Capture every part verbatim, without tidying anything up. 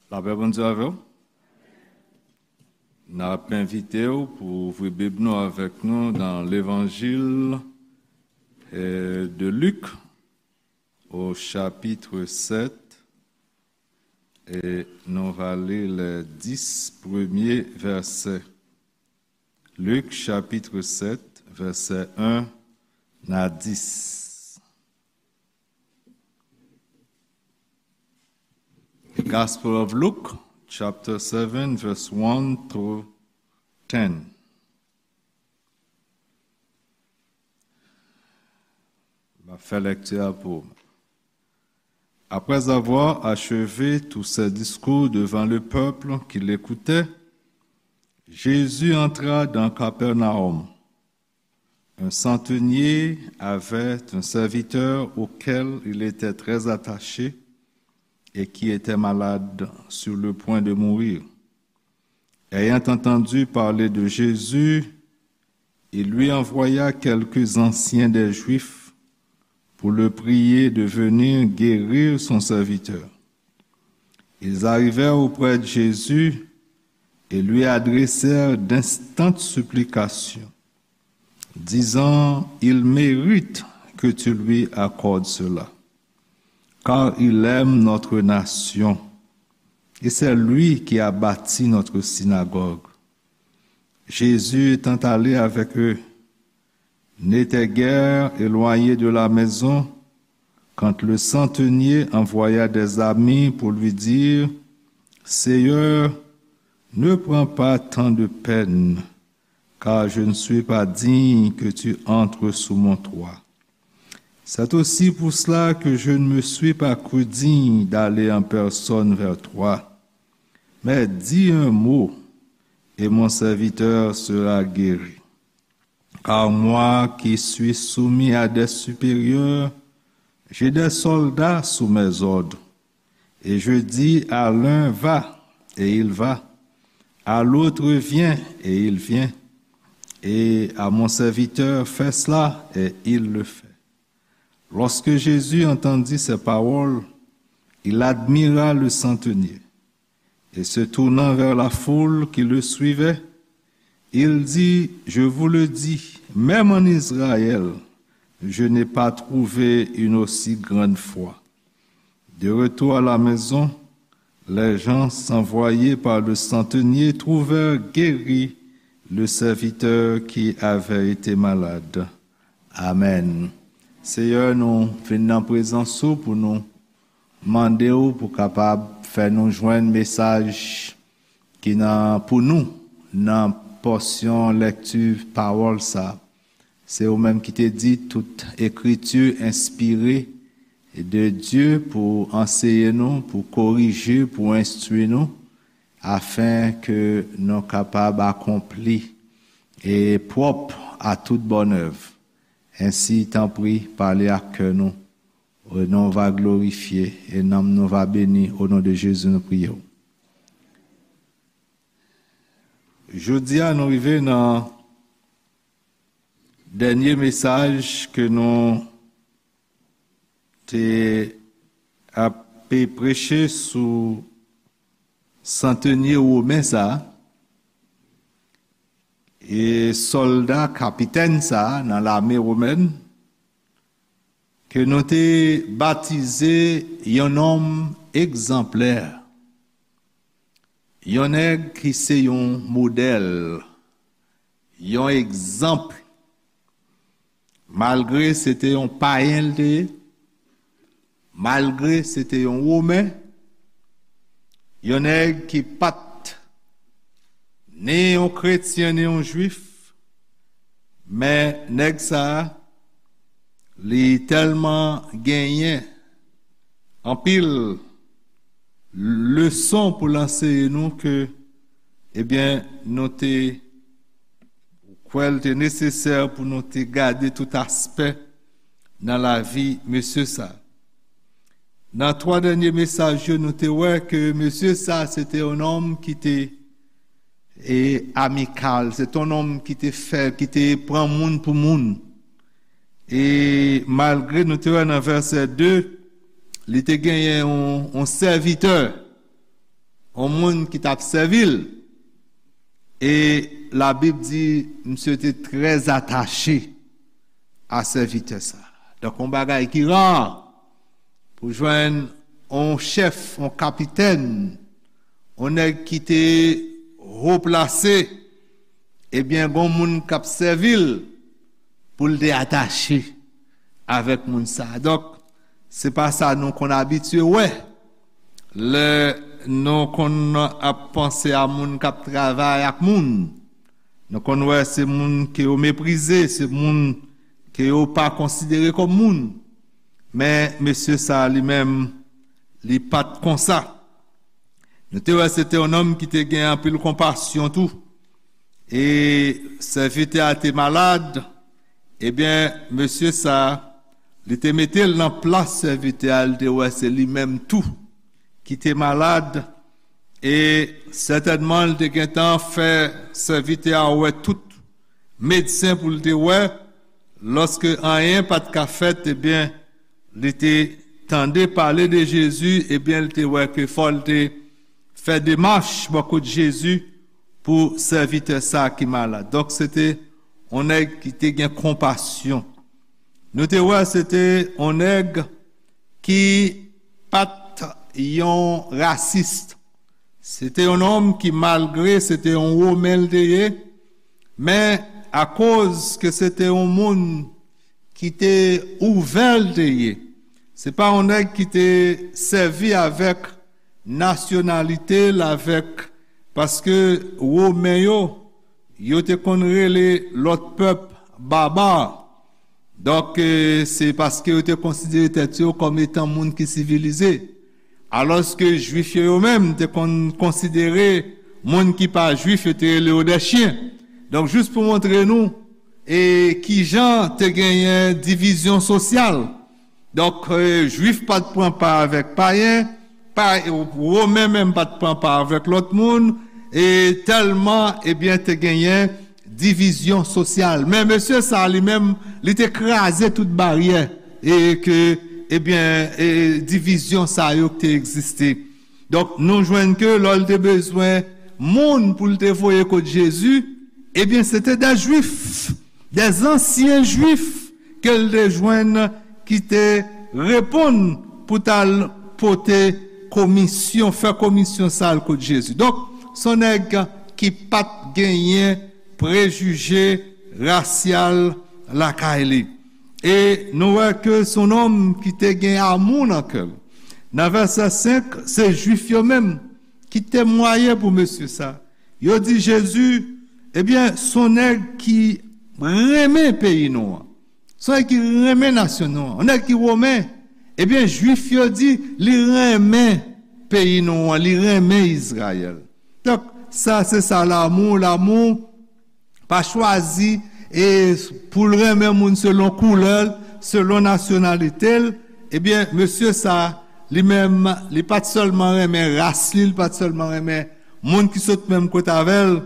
Lapè Bondye avè w. N ap envite w pou ouvri Bib nou avèk nou nan Levanjil, eh, de Lik, au chapitre sept, e nou va li les dix premiers versets. Lik, chapitre sept, vèsè un a dix. The Gospel of Luke, chapter seven, verse one through ten. M ap fè lèkti a pou ou. Après avoir achevé tous ses discours devant le peuple qui l'écoutait, Jésus entra dans Capernaum. Un centenier avait un serviteur auquel il était très attaché et qui était malade, sur le point de mourir. Ayant entendu parler de Jésus, il lui envoya quelques anciens des Juifs pour le prier de venir guérir son serviteur. Ils arrivèrent auprès de Jésus et lui adressèrent d'instantes supplications, disant : « Il mérite que tu lui accordes cela, car il aime notre nation, et c'est lui qui a bâti notre synagogue. » Jésus étant allé avec eux, n'était guère éloigné de la maison quand le centenier envoya des amis pour lui dire : « Seigneur, ne prends pas tant de peine, car je ne suis pas digne que tu entres sous mon toit. C'est aussi pour cela que je ne me suis pas cru digne d'aller en personne vers toi. Mais dis un mot, et mon serviteur sera guéri. Car moi qui suis soumis à des supérieurs, j'ai des soldats sous mes ordres. Et je dis à l'un : Va, et il va. À l'autre : Viens, et il vient. Et à mon serviteur : Fais cela, et il le fait. » Lorsque Jésus entendit ces paroles, il admira le centenier. Et se tournant vers la foule qui le suivait, il dit : « Je vous le dis, même en Israël, je n'ai pas trouvé une aussi grande foi. » De retour à la maison, les gens envoyés par le centenier trouvèrent guéri le serviteur qui avait été malade. Amèn. Seyè, nou vin nan prezans ou pou nou mande w pou kapab fè nou jwenn mesaj ki nan, pou nou, nan pòsyon lèkti pawòl sa. Se ou menm ki te di tout ekriti enspire de Dye pou anseye nou, pou korije, pou enstwi nou, afen ke nou kapab akonpli e pwòp a tout bòn èv. Ensi, tanpri, pale ak kè nou. Non va glorifye e nanm nou va beni. O non de Jezi, nou priye w. Jodi a, nou rive nan dènye mesaj ke nou te ap preche sou santenye women sa a, e sòlda kapitèn sa a nan lame womèn, ke nou te batize yon nonm egzanplè, yon nèg ki se yon modèl, yon egzanp, malgre se te yon payen l te ye, malgre se te yon women, yon nèg ki pa t ni yon kretyen ni yon jwif, men nèg sa a, li tèlman genyen anpil leson pou l anseye nou ke, ebyen, nou te kwè l te nesesè pou nou te gade tout aspè nan lavi mesye sa. Nan twa dènye mesaj yo, nou te wè ke mesye sa se te yon nonm ki te e amikal, se te yon nonm ki te fè, ki te pran moun pou moun. E malgre nou te wè nan vèsè de, li te genyen yon, yon sèvitè, yon moun ki t ap sèvi l. E Labib di, misye te trè atache a sèvitè sa. Donk, yon bagay ki ra pou jwenn yon chèf, yon kapitèn, yon nèg ki te wo plase, ebyen, gon moun k ap sèvi l pou l te atache avèk moun sa. Donk, se pa sa nou konn abitye wè lè nou konn ap panse a moun k ap travay ak moun. Nou konn wè se moun ke yo meprize, se moun ke yo pa konsidere kòm moun. Men mesye sa li menm, li pa t konsa. Nou te wè se te yon nonm ki te gen anpil konpasyon tou. E sèvitè a te malad, ebyen, mesye sa, li te mete l nan plas sèvitè a, li te wè se li menm tou ki te malad, e sètènman, li te gentan fè sèvitè a wè tout medsen pou l te wè, lòske anyen pa t ka fèt, ebyen, li te tande pale de Jezi, ebyen, li te wè ke fò l te fè demach bò kot Jezi pou sèvitè sa ki malad. Donk, se te yon nèg ki te gen konpasyon. Nou te wè se te yon nèg ki pa t yon rasis. Se te yon nonm ki, malgre se te yon Women l te ye, men akoz ke se te yon moun ki te ouvè l te ye. Se pa yon nèg ki te sèvi avèk nasyonalite l, avèk, paske Women yo, yo te konn rele lòt pèp baba. Donk, e, se paske yo te konsidere tèt yo kòm etan moun ki sivilize. Alòske Jwif yo, yo menm, te konn konsidere moun ki pa Jwif, yo te rele yo dè chyen. Donk, jis pou montre nou, e, kijan te genyen divizyon sosyal. Donk, e, Jwif pa t pran pa avèk payen, pa, Women menm pa t pran pa avèk lòt moun, e tèlman, ebyen, te genyen divizyon sosyal. Men mesye sa li menm, li te kraze tout baryè e ke, ebyen, e divizyon sa yo ki te egziste. Donk, nou jwenn ke lè l te bezwen moun pou l te voye kot Jezi, ebyen, se te dè Jwif, dè zansyen Jwif ke l te jwenn ki te reponn pou t al pote komisyon, fè komisyon sa l kot Jezi. Donk, se yon nèg ki pa t genyen prejije rasyal lakay li. E nou wè ke se yon nonm ki te gen amou nan kè l. Nan vèsè senk, se Jwif yo menm ki temwaye pou mesye sa. Yo di Jezi, ebyen, se yon nèg ki renmen peyi nou an. Se yon nèg ki renmen nasyon nou an. Yon nèg ki Women, ebyen, Jwif yo di, li renmen peyi nou an, li renmen Izrayèl. Donk, sa, se sa, lanmou, lanmou pa chwazi e pou l renmen moun selon koulè l, selon nasyonalite l. Ebyen, mesye sa, li menm, li pa t sèlman renmen ras li, li pa t sèlman renmen moun ki sot menm kote avè l,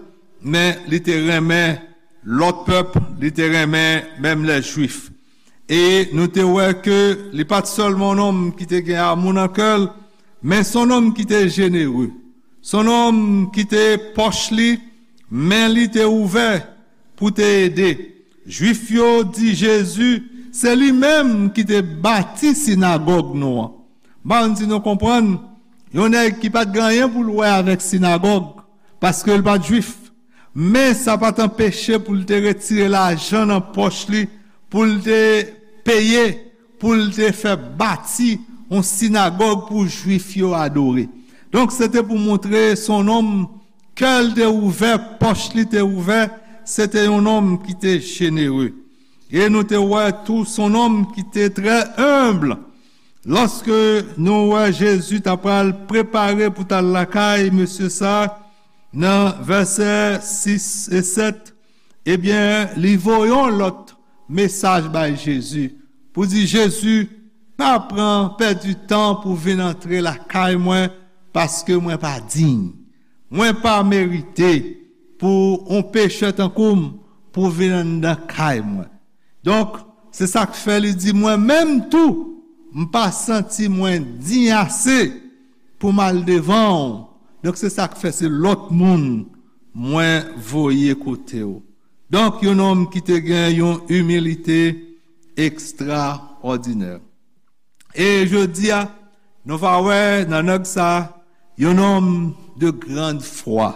men li te renmen lòt pèp, li te renmen menm lè Jwif. E nou te wè ke li pa t sèlman yon nonm ki te gen amou nan kè l, men se yon nonm ki te jenere. Se yon nonm ki te pòch li, men li te ouvè pou te ede. Jwif yo di Jezi, se li menm ki te bati sinagòg nou an. M pa konn si nou konprann, yon nèg ki pa t gen anyen pou l wè avèk sinagòg, paske l pa t Jwif. Men sa pa t anpeche pou l te retire lajan nan pòch li, pou l te peye, pou l te fè bati yon sinagòg pou Jwif yo adore. Donk, se te pou montre se yon nonm, kè l te ouvè, pòch li te ouvè, se te yon nonm ki te jenere. E nou te wè tou se yon nonm ki te trè enb. Lòske nou wè Jezi ta pral prepare pou t al lakay mesye sa, nan vèsè sis e sèt, ebyen, li voye yon lòt mesaj bay Jezi pou di, Jezi, pa pran pèdi tan pou vin antre lakay mwen, paske mwen pa diy. Mwen pa merite pou yon pechè tankou m pou vin anndan kay mwen. Donk, se sa k fè li di, mwen menm tou, m pa santi mwen diy ase pou m al devan w Donk, se sa k fè se lòt moun mwen voye kote w. Donk, yon nonm ki te gen yon imilite ekstraòdinè. E jodi a, nou va wè nan nèg sa, yon nonm de grande foi.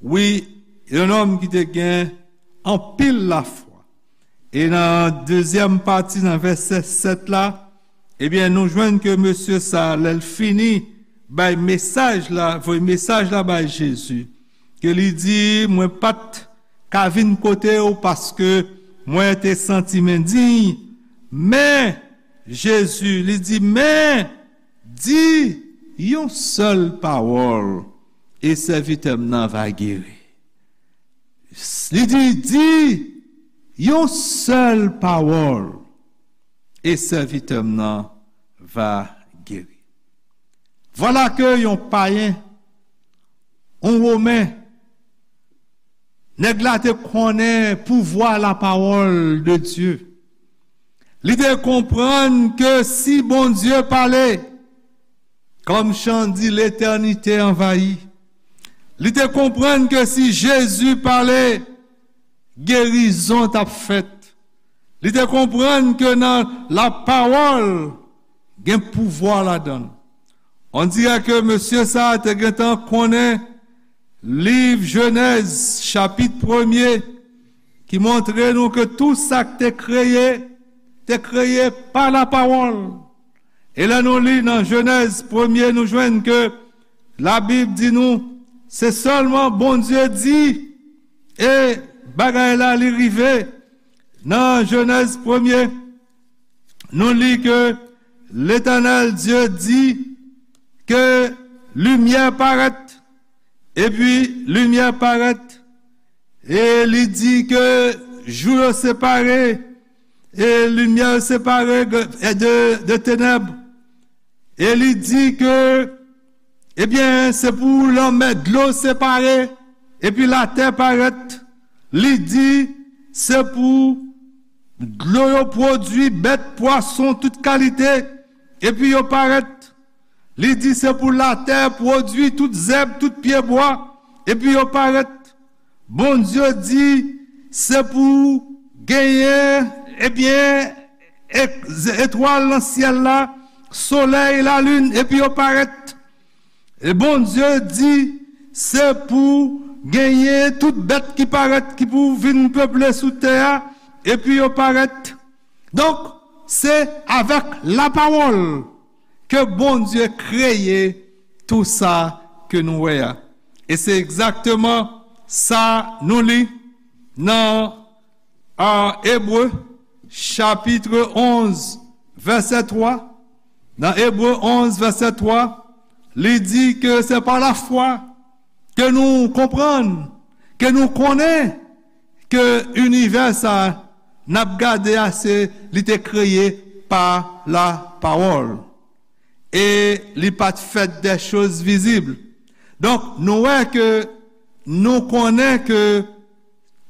Wi, yon nonm ki te gen anpil lafwa. E nan dezyèm pati, nan vèsè sèt la, ebyen, nou jwenn ke mesye sa, lè l fini bay mesaj la, voye mesaj la bay Jezi, ke li di, mwen pa t ka vin kote w paske mwen te santi m endiy, men, Jezi, li di, men, di yon sèl pawòl, e sèvitè m nan va geri. Li di, di yon sèl pawòl, e sèvitè m nan va geri. Vwala ke yon payen, yon Women, nèg la te konnen pouvwa lapawòl de Dye. Li te konprann ke si Bondye pale, kòm chan di, letènite anvayi. Li te konprann ke si Jezi pale, gerizon t ap fèt. Li te konprann ke nan lapawòl, gen pouvwa ladan l. On dirè ke mesye sa a te gentan konnen liv Jenèz, chapit premye, ki montre nou ke tou sa k te kreye, te kreye pa lapawòl. E lè nou li nan Jenèz premye, nou jwenn ke Labib di nou, se sèlman Bondye di, e bagay la li rive. Nan Jenèz premye, nou li ke Letènèl Dye di ke limyè parèt, epi limyè parèt, e li di ke jou yo separe, e limyè yo separe de, de tenèb. E li di ke, ebyen, se pou lanmè dlo separe, epi latè parèt. Li di, se pou dlo yo pwodui bèt, pwason, tout kalite, epi yo parèt. Li di, se pou latè pwodui tout zèb, tout pyebwa, epi yo parèt. Bondye di, se pou genyen, ebyen, e-, etwal nan syèl la, solèy, lalin, epi yo parèt. E Bondye di, se pou genyen tout bèt ki parèt, ki pou vin peple sou tè a, epi yo parèt. Donk, se avèk lapawòl ke Bondye kreye tou sa ke nou wè a. E se egzakteman sa nou li nan, a, Ebre, chapit onz, vèsè twa. Nan Ebre onz, vèsè twa, li di ke se pa lafwa ke nou konprann, ke nou konnen ke inivè sa n ap gade a, se li te kreye pa lapawòl. E li pa t fèt de choz vizib. Donk, nou wè ke nou konnen ke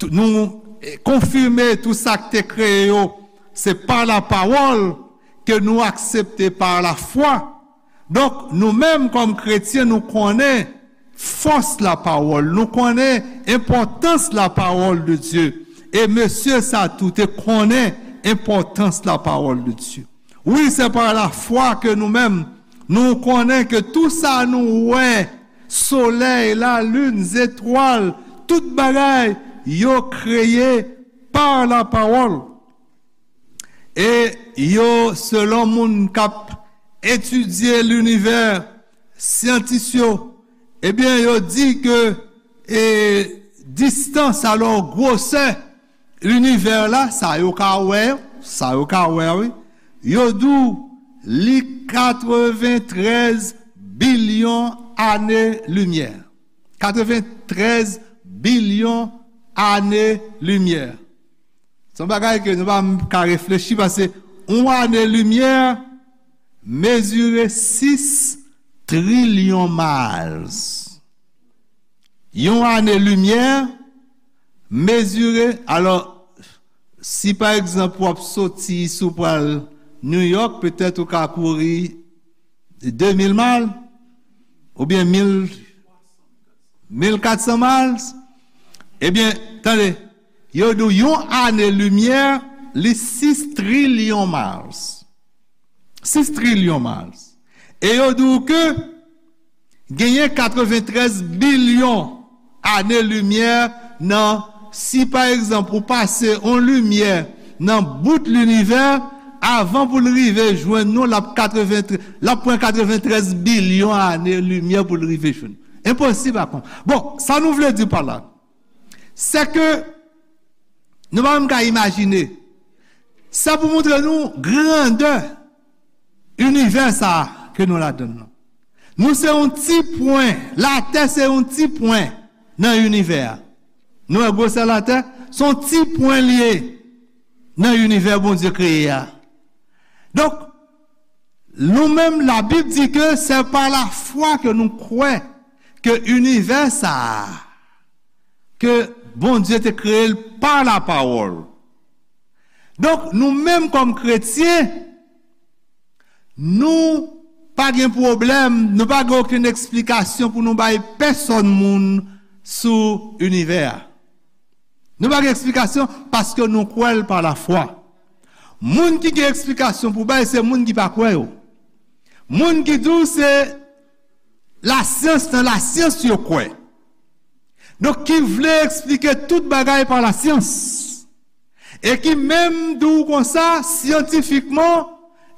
tou-, nou, eh, konfime tou sa k te kreye yo, se pa lapawòl ke nou aksepte pa lafwa. Donk, nou menm kòm kretyen, nou konnen fòs lapawòl, nou konnen enpòtans lapawòl de Dye. E mesye sa tou te konnen enpòtans lapawòl de Dye. Wi, se pa lafwa ke nou menm, nou konnen ke tou sa nou wè, solèy, lalin, zetwal, tout bagay, yo kreye pa lapawòl. E yo, selon moun k ap etidye linivè, syantis yo, ebyen, yo di ke, e, distans, alò, gwosè linivè la, sa yo ka wè, sa yo ka wè, wi, yo di w li katreventrèz bilyon ane limyè. Katreventrèz bilyon ane limyè. Se yon bagay ke nou pa ka reflechi, paske yon ane limyè mezire sis trilyon miles. Yon ane limyè mezire, alò, si pa egzanp w ap soti isi w pral New York, petèt ou ka kouri de mil miles, oubyen mil, Mil katsan miles? Ebyen, tande, yo di w yon ane limyè, li sis trilyon miles. Sis trilyon miles. E yo di w ke genyen katreventrèz bilyon ane limyè nan, si pa egzanp ou pase yon limyè nan bout linivè, avan pou l rive jwenn nou, l ap katreventrèz, l ap pran katreventrèz bilyon ane limyè pou l rive jwenn nou. Enposib a konprann. Bon, sa nou vle di pa la, se ke nou pa menm ka imajine. Sa pou montre nou grandè inivè sa a ke nou ladann nan. Nou se yon ti pwen. Latè se yon ti pwen nan inivè a. Nou wè gwosè Latè? Se yon ti pwen li ye nan inivè Bondye kreye a. Donk, nou menm, Labib di ke se pa lafwa ke nou kwè ke inivè sa a, ke Bondye te kreye l pa lapawòl. Donk, nou menm kòm kretyen, nou pa gen pwoblèm, nou pa gen okenn eksplikasyon pou nou bay pèsonn moun sou inivè a. Nou pa gen eksplikasyon paske nou kwè l pa lafwa. Moun ki gen eksplikasyon pou bay, se moun ki pa kwè yo. Moun ki di w se lasyans, nan lasyans yo kwè. Donk, ki vle eksplike tout bagay pa lasyans. E ki menm di w konsa, syantifikman,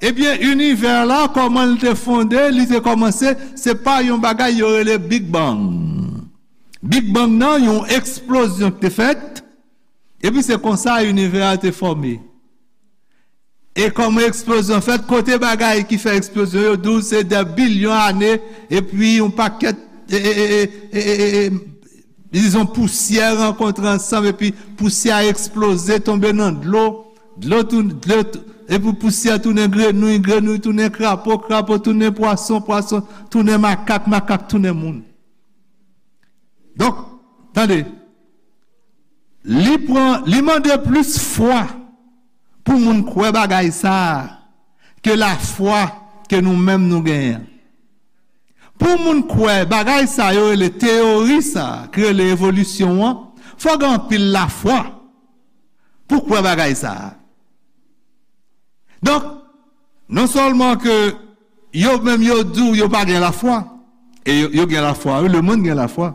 ebyen, inivè la, kòman l te fonde, li te kòmanse, se pa yon bagay yo rele Big Bang. Big Bang nan, yon eksplozyon ki te fèt, epi se konsa inivè a te fòme. E kòman eksplozyon fèt, kote bagay ki fè eksplozyon yo, di w se dè bilyon ane, epi yon pakèt, e, e, e, e, e, e, dizon, pousyè rankontre ansanm, epi pousyè a eksploze, tonbe nan dlo, dlo tou, dlo tou, epi pousyè tounen grenouy, grenouy tounen krapo, krapo tounen pwason, pwason tounen makak, makak tounen moun. Donk, tande, li pran, li mande plis fwa pou moun kwè bagay sa a ke lafwa ke nou menm nou genyen an. Pou moun kwè bagay sa yo rele teyori sa a, ki rele evolisyon an, fò gen anpil lafwa pou kwè bagay sa a. Donk, non sèlman ke yo menm yo di w yo pa gen lafwa, e yo, yo gen lafwa, wi, lemonn gen lafwa.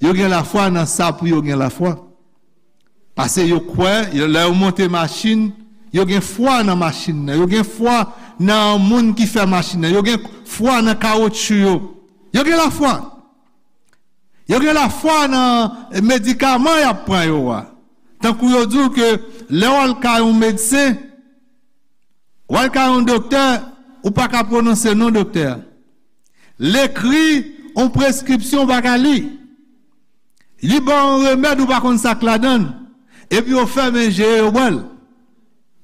Yo gen lafwa nan sa pou yo gen lafwa. Paske yo kwè, yo, lè yo monte machin, yo gen fwa nan machin nan, yo gen fwa nan moun ki fè machin nan, yo gen fwa nan kawotchou yo. Yo gen lafwa. Yo gen lafwa nan medikaman y ap pran yo a. Tankou yo di w ke lè w al kay yon medsen, w al kay yon doktè, ou pa ka pwononse non doktè a. L ekri yon preskripsyon, ou pa ka li. Li ba w yon remèd, ou pa konn sa k ladan l. Epi yo fèmen je yo, yo bwè l.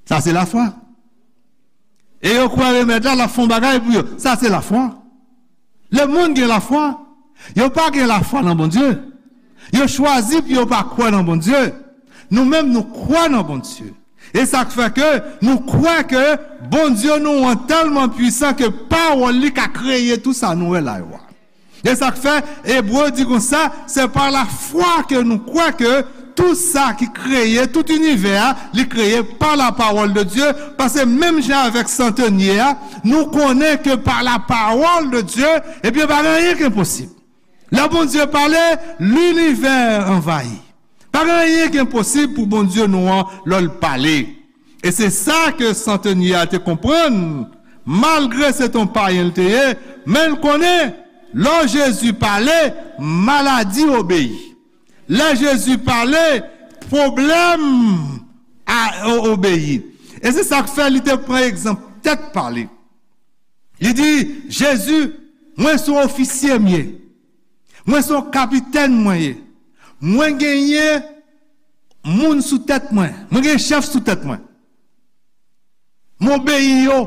Sa se lafwa. E yo kwè remèd la, l ap fè yon bagay pou yo. Sa se lafwa. Lemonn gen lafwa. Yo pa gen lafwa nan Bondye. Yo chwazi pou yo pa kwè nan Bondye. Nou menm, nou kwè nan Bondye. E sa k fè ke nou kwè ke Bondye nou an tèlman pwisan ke pawòl li ka kreye tou sa nou wè la yo a. E sa k fè Ebre di konsa, se pa lafwa ke nou kwè ke tou sa ki kreye, tout inivè a, li kreye pa la parole de Dieu, paske menm jan avèk santenye a, nou konnen ke pa la parole de Dieu, ebyen, pa gen anyen ki enposib. Lè Bondye pale, linivè anvayi. Pa gen anyen ki enposib pou Bondye nou an lè l pale. E se sa ke santenye a te konprann, malgre se t on payen l te ye, men l konnen, lè Jezi pale, maladi obeyi. Lè Jezi pale, pwoblèm a, o-, obeyi. E se sa k fè li te pran egzanp tèt pa li. Li di, Jezi, mwen se yon ofisye m ye. Mwen se yon kapitèn mwen ye. Mwen genyen moun sou tèt mwen. Mwen gen chèf sou tèt mwen. Mwen obeyi yo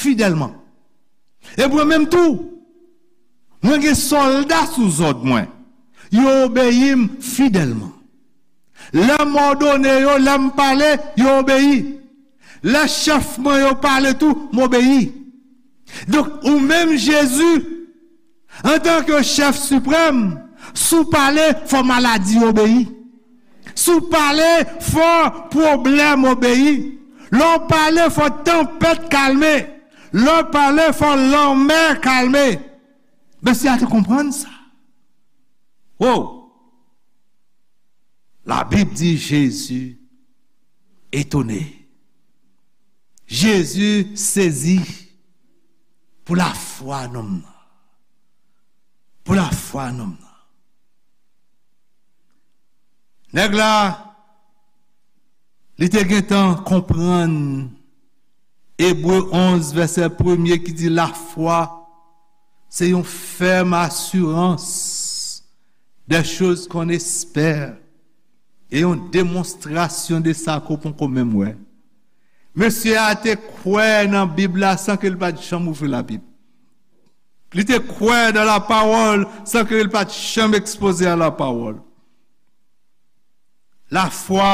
fidèlman. E mwen menm tou, mwen gen sòlda sou zòd mwen. Yo obeyi m fidèlman. Lè m òdone yo, lè m pale, yo obeyi. Lè chèf mwen yo pale tou, m obeyi. Donk, ou menm Jezi, antanke chèf siprèm, Si w pale, fò maladi obeyi. Si w pale, fò pwoblèm obeyi. Lè w pale, fò tanpèt kalme. Lè w pale, fò lanmè kalme. Mesye a te konprann sa. Wow! Labib di Jezi etone. Jezi sezi pou lafwa nonm nan. Pou lafwa nonm nan. Nèg la, li te gentan konprann Ebre onz, vèsè premye ki di, lafwa se yon fèm asirans des choses qu'on espère e yon demonstrasyon de sa ke w poko menm wè. Mesye a te kwè nan Bib la san ke l pa t janm ouvri Labib. Li te kwè nan lapawòl san ke l pa t janm ekspoze a lapawòl. Lafwa,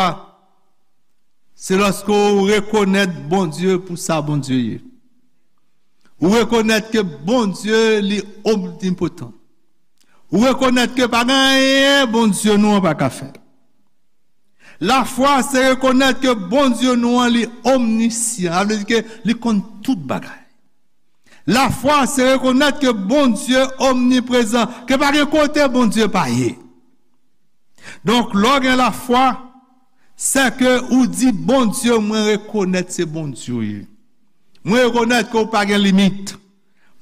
se lòske w rekonèt Bondye pou sa Bondye ye. Ou rekonèt ke Bondye li omnipotan. Ou rekonèt ke pa gen anyen Bondye nou an pa ka fè. Lafwa, se rekonèt ke Bondye nou an li omnisyan. Sa vle di ke li konn tout bagay. Lafwa, se rekonèt ke Bondye omniprezan, ke pa gen kote Bondye pa ye. Donk, lè w gen lafwa, se ke ou di, Bondye, mwen rekonèt se Bondye w ye. Mwen rekonèt ke w pa gen limit.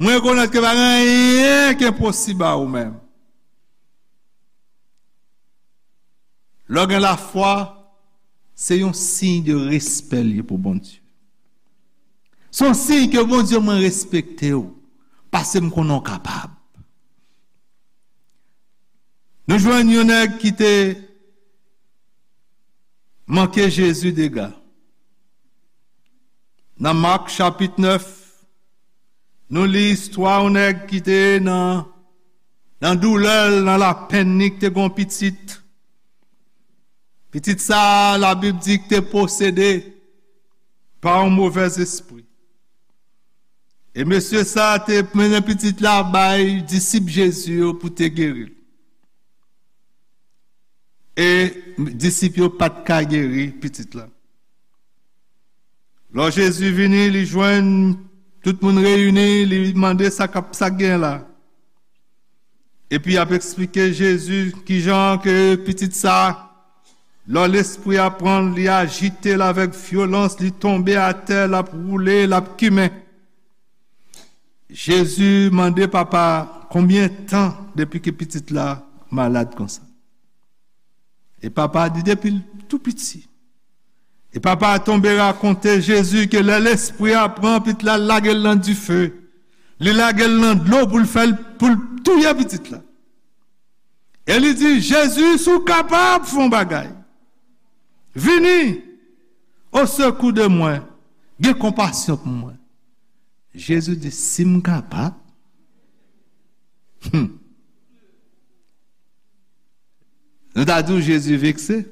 Mwen rekonèt ke pa gen anyen ki enposib a ou menm. Lè w gen lafwa, se yon siy de respè l ye pou Bondye. Se yon siy ke Bondye, mwen respekte w, paske m konnen w kapab. Nou jwenn yon nèg ki te manke Jezi dega. Nan Mak chapit nèf, nou li istwa yon nèg ki te nan, nan doulè l, nan lapenn li, ki te gen yon pitit. Pitit sa a, Labib di ki te posede pa yon movèzespri. E mesye sa a te mennen pitit la bay disip Jezi yo pou te geri l. E disip yo pa t ka geri pitit la. Lò Jezi vini, li jwenn tout moun reyini, li mande sa k ap, sa k gen la. Epi y ap eksplike Jezi kijan ke pitit sa, lò lespri a pran l, li ajite l avèk vyolans, li tonbe atè, l ap woule, l ap kimen. Jezi mande papa a, konbyen tan depi ke pitit la malad konsa? E papa a di, depi l tou piti. E papa a tonbe rakonte Jezi ke lè lespri a pran pitit la, l lage l nan dife. Li lage l nan dlo pou l fè l, pou l touye pitit la. E li di, Jezi, si w kapab, fè yon bagay. Vini au secours de moi. Gen konpasyon pou mwen. Jezi di, si m kapab. Hmm. Nou ta di w Jezi vekse.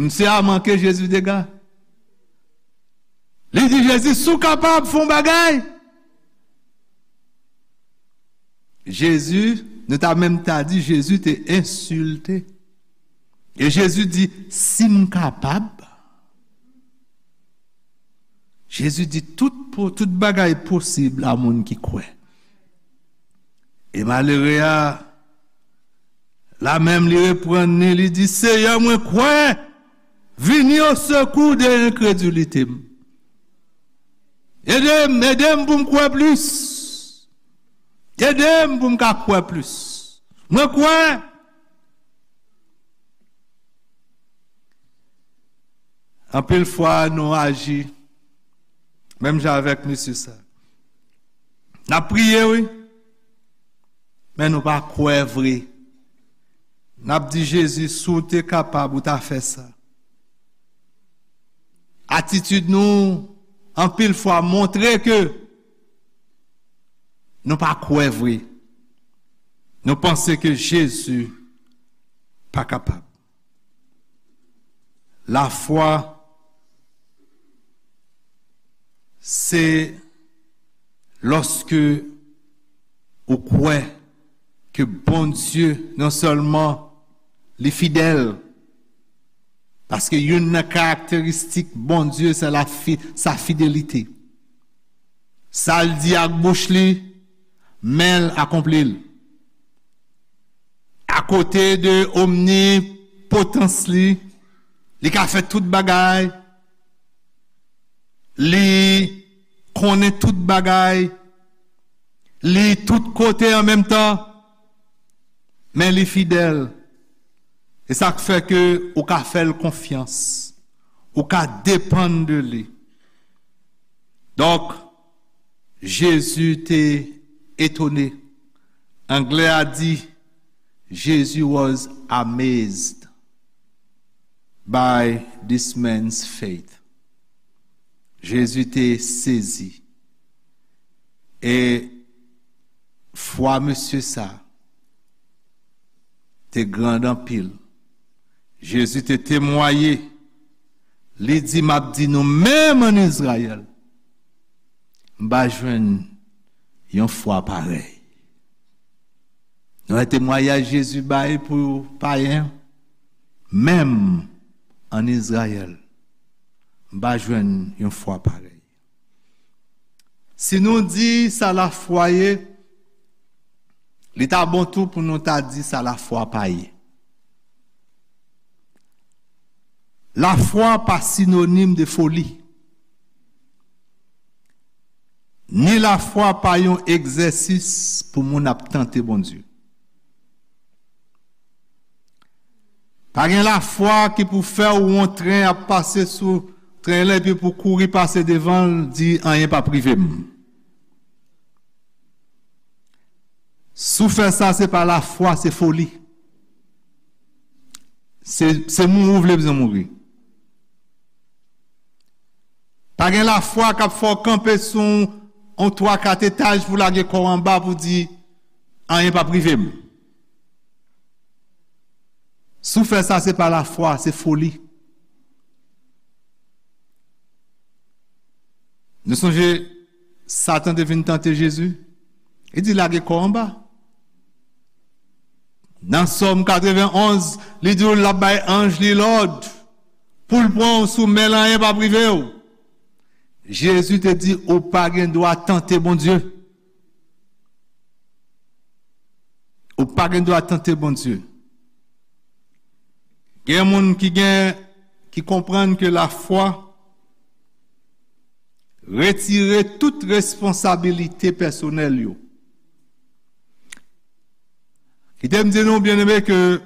Misye a manke Jezi dega. Li di Jezi, si w kapab, fè yon bagay. Jezi, nou ta menm ta di, Jezi te ensilte. E Jezi di, si m kapab. Jezi di, tout, po- tout bagay posib a moun ki kwè. E malere a, la menm li reprann li, li di, Seyè, mwen kwè, vini au secours de enkredilite m. Ede m, ede m pou m kwè plis. Ede m pou m ka kwè plis. Mwen kwè. Anpil fwa, nou aji menm jan avèk mesye sa. N ap priye, wi, men nou pa kwè vre. N ap di, Jezi, si w te kapab, ou ta fè sa. Atitid nou, anpil fwa, montre ke nou pa kwè vre. Nou panse ke Jezi pa kapab. Lafwa, se lòske ou kwè ke Bondye non sèlman li fidèl, paske youn nan karakteristik Bondye se la fi, sa fidelite. Sa l di ak bouch li, men l akonpli l. Akote de omnipotans li, li ka fè tout bagay, li konnen tout bagay, li tout kote an menm tan, men li fidèl. E sa k fè ke ou ka fè l konfyans, ou ka depann de li. Donk, Jezi te etone. Anglè a di, Jesus was amazed by this man's faith. Jezi te sezi. E fwa mesye sa te grand anpil. Jezi te temwaye. Li di, "M ap di nou, menm ann Izrayèl, m pa jwenn yon fwa parèy." Nou wè temwayaj Jezi bay pou payen, menm ann Izrayèl, m pa jwenn yon fwa parèy. Si nou di sa lafwa ye, li ta bon tou pou nou ta di sa lafwa pa ye. Lafwa pa sinonim de foli. Ni lafwa pa yon egzèsis pou moun ap tante Bondye. Pa gen lafwa ki pou fè w wè yon tren ap pase sou tren lan epi pou kouri pase devan l, di, "Anyen p ap rive m." Si w fè sa, se pa lafwa, se foli. Se, se mouri w vle bzwen mouri. Pa gen lafwa k ap fè w kanpe sou yon, yon twa kat etaj pou lage kò w anba pou di, "Anyen p ap rive m." Si w fè sa, se pa lafwa, se foli. Nou sonje Satan te vin tante Jezi. Li di, "Lage kò w anba." Nan Sòm katrevenn onz, li di w l ap bay anj li lòd pou l pran w sou men l, anyen p ap rive w. Jezi te di, "Ou pa gen dwa tante Bondye." Ou pa gen dwa tante Bondye. Gen moun ki gen, ki konprann ke lafwa retire tout responsabilite pèsonèl yo. Kite m di nou, byeneme, ke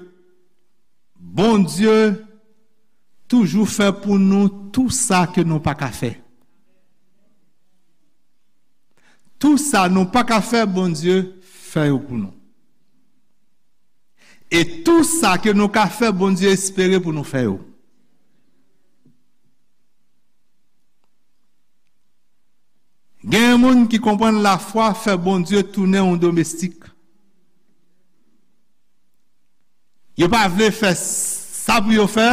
Bondye toujou fè pou nou tou sa ke nou pa ka fè. Tou sa nou pa ka fè, Bondye fè yo pou nou. E tou sa ke nou ka fè, Bondye espere pou nou fè yo. Gen moun ki konprann lafwa fè Bondye tounen yon domestik. Yo pa vle fè sa pou yo fè,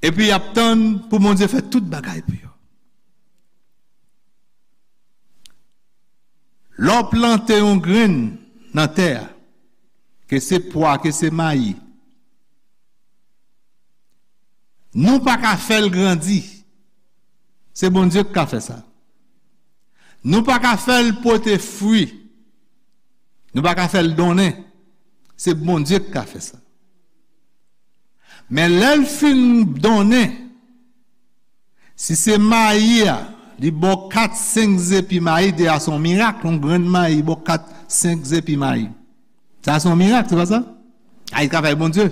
epi y ap tann pou Bondye fè tout bagay pou yo. Lè w plante yon grenn nan tè a, ke se pwa, ke se mayi, nou pa ka fè l grandi. Se Bondye ki ka fè sa. Nou pa ka fè l pote fwi. Nou pa ka fè l donnen. Se Bondye ki ka fè sa. Men lè l fin donnen, si se mayi a, li ba w kat, senk zepi mayi, deja se yon mirak, yon grenn mayi ba w kat, senk zepi mayi. Sa se yon mirak, se pa sa? A, e travay Bondye.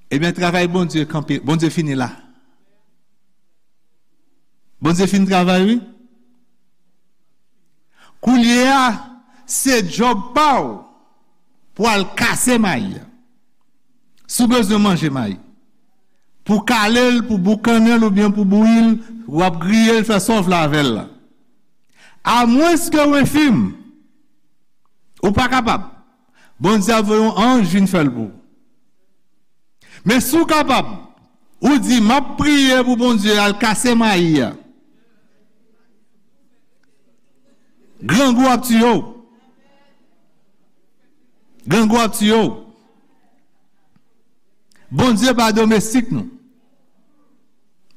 Ebyen, travay Bondye kanpe, Bondye fini la. Bondye fin travay, wi. Koulye a, se djòb pa w pou al kase mayi a. Si w bezwen manje mayi, pou kale l, pou boukannen l oubyen pou bouyi l, w ap griye l, fè sa w vle avè l la. Amwenske w enfim, ou pa kapab, Bondye ap voye yon anj vin fè l pou ou. Men si w kapab, ou di, "M ap priye pou Bondye al kase mayi a." Grangou ap tiye w. Grangou ap tiye w. Bondye pa domestik nou.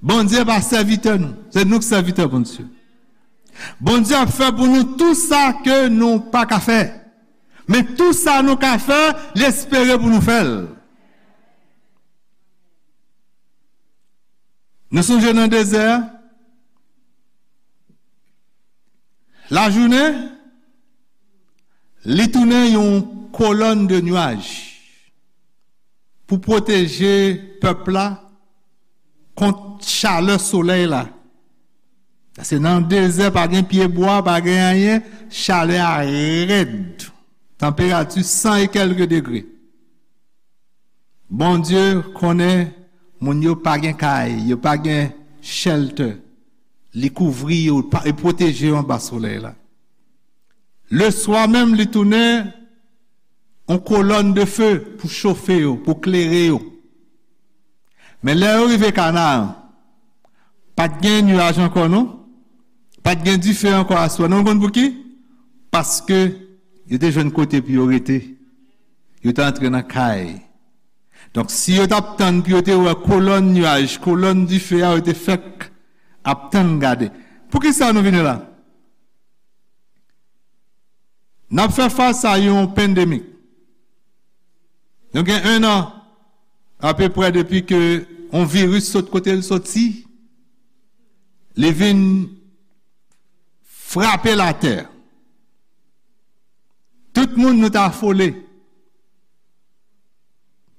Bondye pa sèvitè nou. Se nou k sèvitè Bondye. Bondye ap fè pou nou tou sa ke nou pa ka fè. Men tou sa nou ka fè, li espere pou nou fè l. Nou sonje nan dezè a, lajounen, li tounen yon kolòn de nuaj pou pwoteje pèp la kont chalè solèy la. Paske nan dezè, pa gen pyebwa, pa gen anyen, chalè a rèd. Tanperati san e kèlke degre. Bondye konnen moun yo pa gen kay, yo pa gen shelter. Li kouvri yo, pa- e pwoteje yo anba solèy la. Leswa menm, li tounen yon kolòn de fe pou chofe yo, pou klere yo. Men lè yo rive Kanaan, pa t gen nuaj ankò non. Pa t gen dife ankò aswè. Non, w konn pou ki? Paske yo te jwenn kote pou yo rete. Yo te antre nan kay. Donk, si yo t ap tann pou yo te wè kolòn nuaj, kolòn dife a, yo te fèk ap tann gade. Poukisa nou vini la? N ap fè fas a yon pandemik. Nou gen en an apeprè depi ke yon viris sot kote l soti, li vin frape latè. Tout moun nou t afole.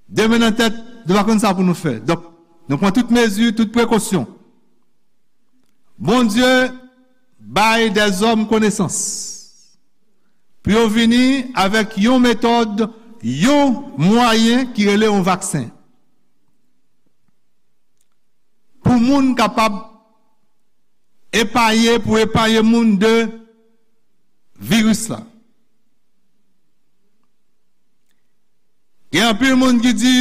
De men nan tèt, nou pa konn sa pou nou fè. Donk, nou pran tout mezi, tout prekosyon. Bondye bay dèzòm konesans pou yo vini avèk yon metòd, yon mwayen ki rele yon vaksen. Pou moun kapab epaye, pou epaye moun de viris la. Gen anpil moun ki di,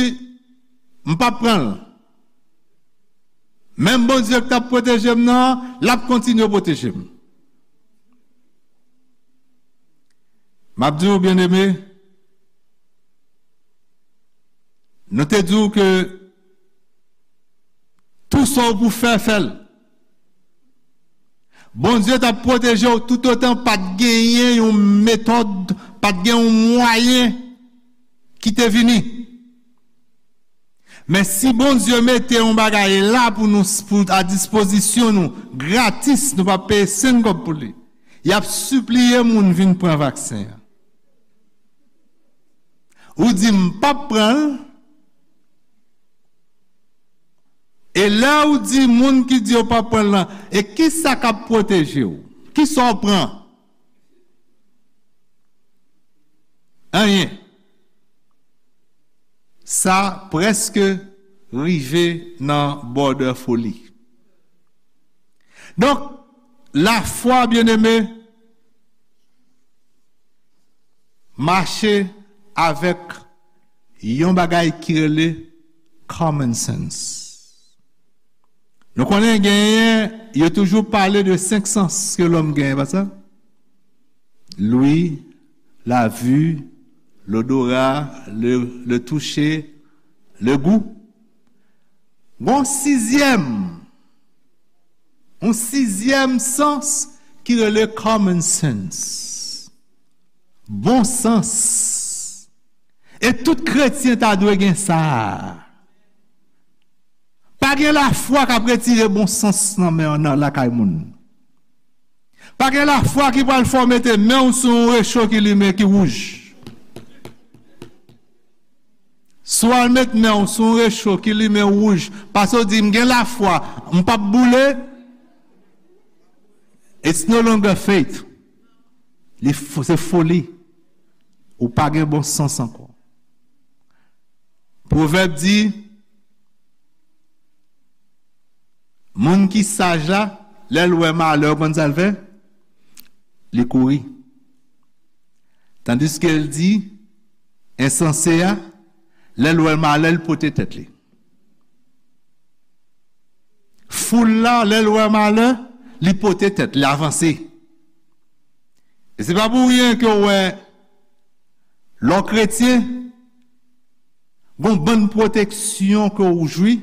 "M p ap pran l." Menm Bondye ki t ap pwoteje m nan, l ap kontinye pwoteje m. M ap di w, byeneme, nou te di w ke tou sa w pou fè, fè l. Bondye t ap pwoteje w toutotan pa t genyen yon metòd, pa t gen yon mwayen ki te vini. Men si Bondye mete yon bagay la pou nou, pou, a dispozisyon nou, gratis, nou p ap peye senn kòb pou li, y ap sipliye moun vin pran vaksen an. Ou di, "M p ap pran l." E lè ou di moun ki di yo p ap pran l lan, e ki sa k ap pwoteje w? Ki sa w pran? Anyen. Sa prèske rive nan bòdè foli. Donk, lafwa, byeneme, mache avèk yon bagay ki rele common sense. Nou konnen genyen, yo toujou pale de senk sans ke lòm genyen, pa sa? L'ouïe, la vue, l'odorat, le, le toucher, le goût. Gon sizyèm, yon sizyèm sans ki rele common sense. Bon sans. E tout kretyen ta dwe gen sa. Pa gen lafwa k ap retire bon sans nan men, nan lakay moun. Pa gen lafwa ki pral fè w mete men w sou yon recho ki limen, ki wouj. Si w al met men w sou yon recho ki limen wouj, paske w di, "M gen lafwa, m p ap boule," it's no longer faith. Li fo-, se foli. Ou pa gen bon sans ankò. Pwovèb di, moun ki saj la, lè l wè malè, ou konn sa l fè? Li kouri. Tandiske l di, ensanse a, lè l wè malè, l pote tèt li. Foul la, lè l wè malè, li pote tèt, li avanse. E se pa pou ryen ke w wè Lè w kretyen, gon bann pwoteksyon ke w jwi.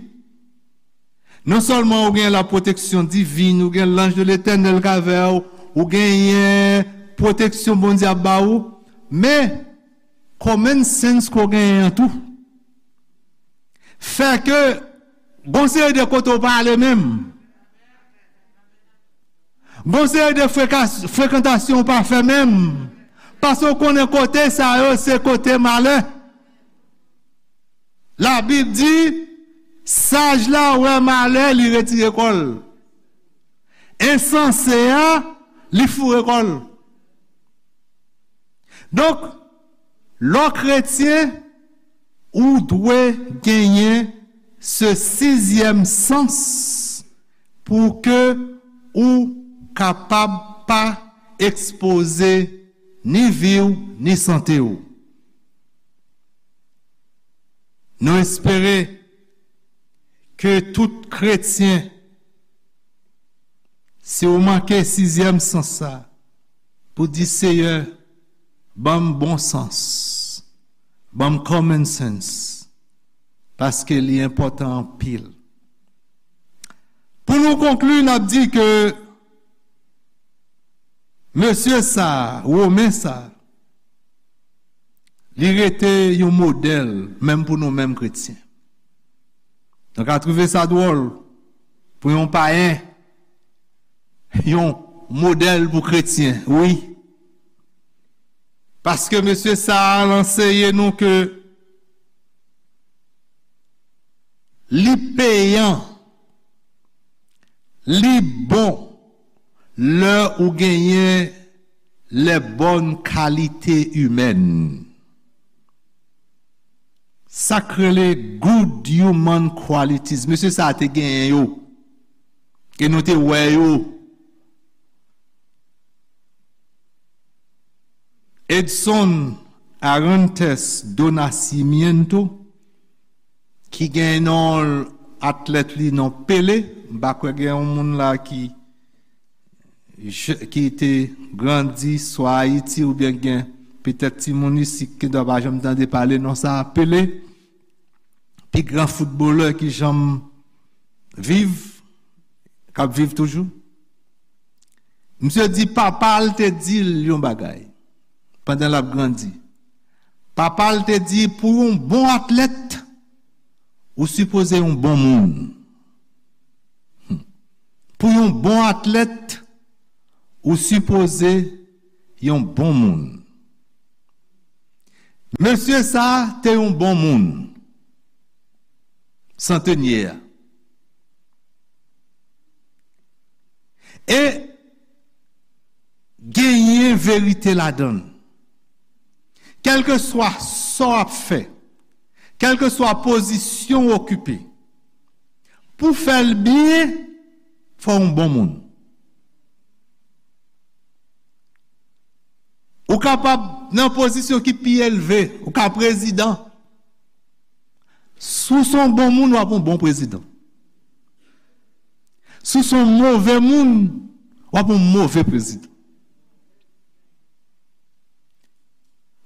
Non sèlman ou gen la pwoteksyon divin, ou gen l'ange de l'Éternel k avè w, ou genyen pwoteksyon Bondye ap ba ou, men common sense ke w genyen an tou fè ke gon seri de kote w pa ale menm. Gon seri de freka- frekantasyon w pa fè menm. Paske w konnen kote sa yo se kote malè. Labib di, saj la wè malè, li retire kò l. Ensanse a, li foure kò l. Donk, lè w kretyen, ou dwe genyen se sizyèm sans pou ke ou kapab pa ekspoze ni vi w, ni sante w. Nou espere ke tout kretyen, si w manke sizyèm sans sa, pou di, Seyè, ban m bon sans, ban m common sense, paske li enpòtan anpil. Pou nou konkli, n ap di ke mesye sa, Women sa, li rete yon modèl, menm pou nou menm kretyen. Nou ka twouve sa dwòl pou yon payen, yon modèl pou kretyen, wi. Paske mesye sa a anseye nou ke li peyan, li bon lè ou genyen les bonnes qualités humaines. Sa k rele good human qualities. Mesye sa a te genyen yo. E nou te wè yo. Edson Arantes do Nascimento, ki gen non atlèt li non Pele, m pa kwè gen yon moun la ki je- ki te grandi swa Ayiti oubyen gen petèt timoun isi ki dwa pa janm tande pale non sa a, Pele, pi gran foutbolè ki janm viv, k ap viv toujou. Misye di papa l te di l yon bagay pandan l ap grandi. Papa l te di, pou yon bon atlèt, ou sipoze yon bon moun. Hmm. Pou yon bon atlèt, ou sipoze yon bon moun. Mesye sa a te yon bon moun, santenye a. E genyen verite ladan l. Kèlkeswa sa w ap fè, kèlkeswa pozisyon w okipe, pou fè l byen, fò w yon bon moun. Ou kapab nan pozisyon ki pi elve, ou ka prezidan. Si w se yon bon moun, w ap yon bon prezidan. Si w se yon move moun, w ap yon move prezidan.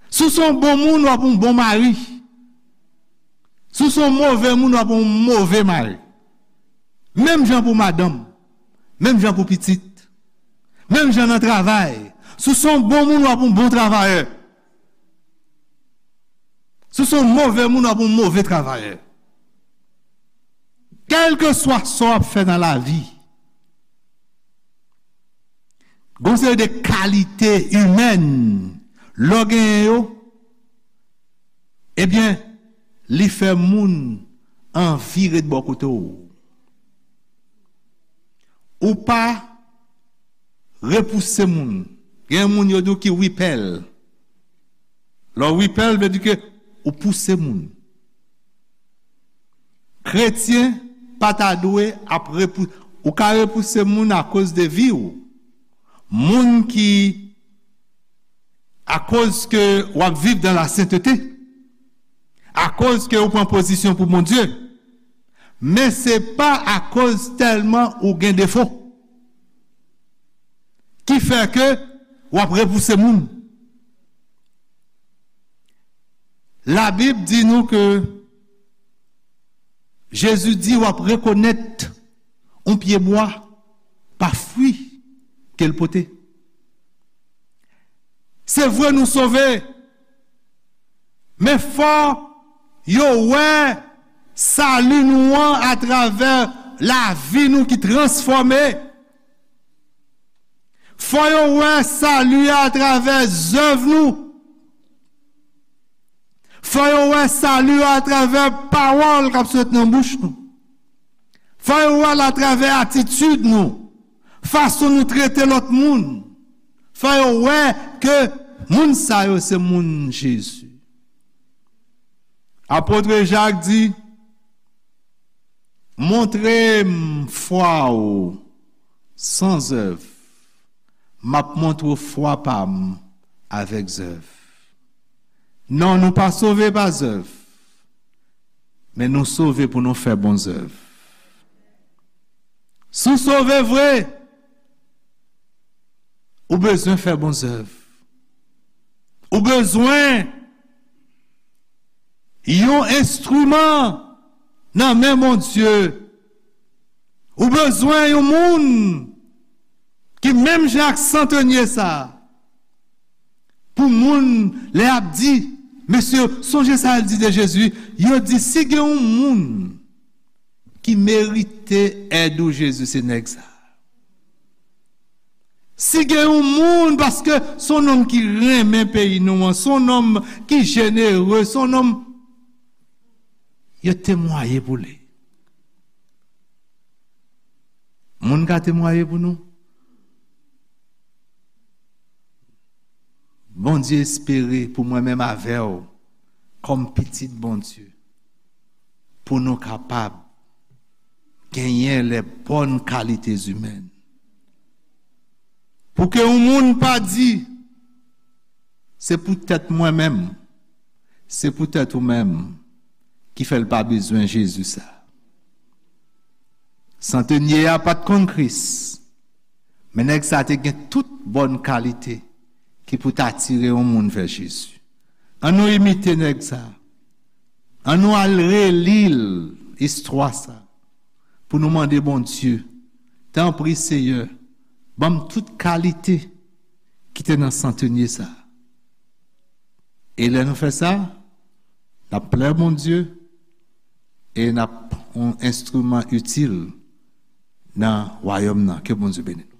Si w se yon bon moun, w ap yon bon mari. Si w se yon move moun, w ap yon move mari. Menm jan pou madanm, menm jan pou pitit, menm jan nan travay. Si w se yon bon moun, w ap yon bon travayè. Si w se yon move moun, w ap yon move travayè. Kèlkeswa sa w ap fè nan lavi, gon seri de kalite imèn, lè w genyen yo, ebyen, li fè moun anvi ret bò kote w. Ou pa repouse moun. Gen moun yo di w ki repel. Lè w repel, vle di ke ou pouse moun. Kretyen pa ta dwe ap repou-, ou ka repouse moun akoz de vi w. Moun ki, akoz ke w ap viv dan la sentete, akoz ke ou pran pozisyon pou Bondye, men se pa akoz tèlman ou gen defo ki fè ke w ap repouse moun. Labib di nou ke Jezi di w ap rekonèt yon pyebwa pa fwi ke l pote. Se vre nou sove, men fò yo wè sali nou an atravè lavi nou ki transfòme. Fò yo wè sali a atravè zèv nou. Fò yo wè sali a atravè pawòl k ap sot nan bouch nou. Fò yo wè l atravè atitid nou, fason nou trete lòt moun. Fò yo wè ke moun sa yo se moun Jezi. Apot Jak di, montre m fwa w san zèv, m ap montre w fwa pa m avèk zèv. Non, nou pa sove pa zèv, men nou sove pou nou fè bon zèv. Si w sove vre, ou bezwen fè bon zèv. Ou bezwen yon enstriman nan men Bondye. Ou bezwen yon moun ki menm jan ak santenye sa a. Pou moun, lè y ap di, mesye, sonje sa l di de Jezi, yo di, si gen yon moun ki merite èd ou, Jezi, se nèg sa a. Si gen yon moun, paske se yon nonm ki renmen peyi nou an, se yon nonm ki jenere, se yon nonm, yo temwaye pou li. Moun ka temwaye pou nou? Bondye espere pou mwen menm avè w, kòm pitit Bondye, pou nou kapab genyen les bonnes qualités humaines. Pou ke yon moun pa di, se poutèt mwen menm, se poutèt ou menm ki fè l pa bezwen Jezi sa. Santenye a pa t konn Kris, men nèg sa te gen tout bòn kalite ki pou t atire yon moun vè Jezi. Ann nou imite nèg sa. Ann nou al reli l, istwa sa, pou nou mande Bondye, tanpri Seyè, ban m tout kalite ki te nan santenye sa. E lè nou fè sa, n ap plè Bondye e n ap yon enstriman itil nan wayòm nan. Ke Bondye beni nou.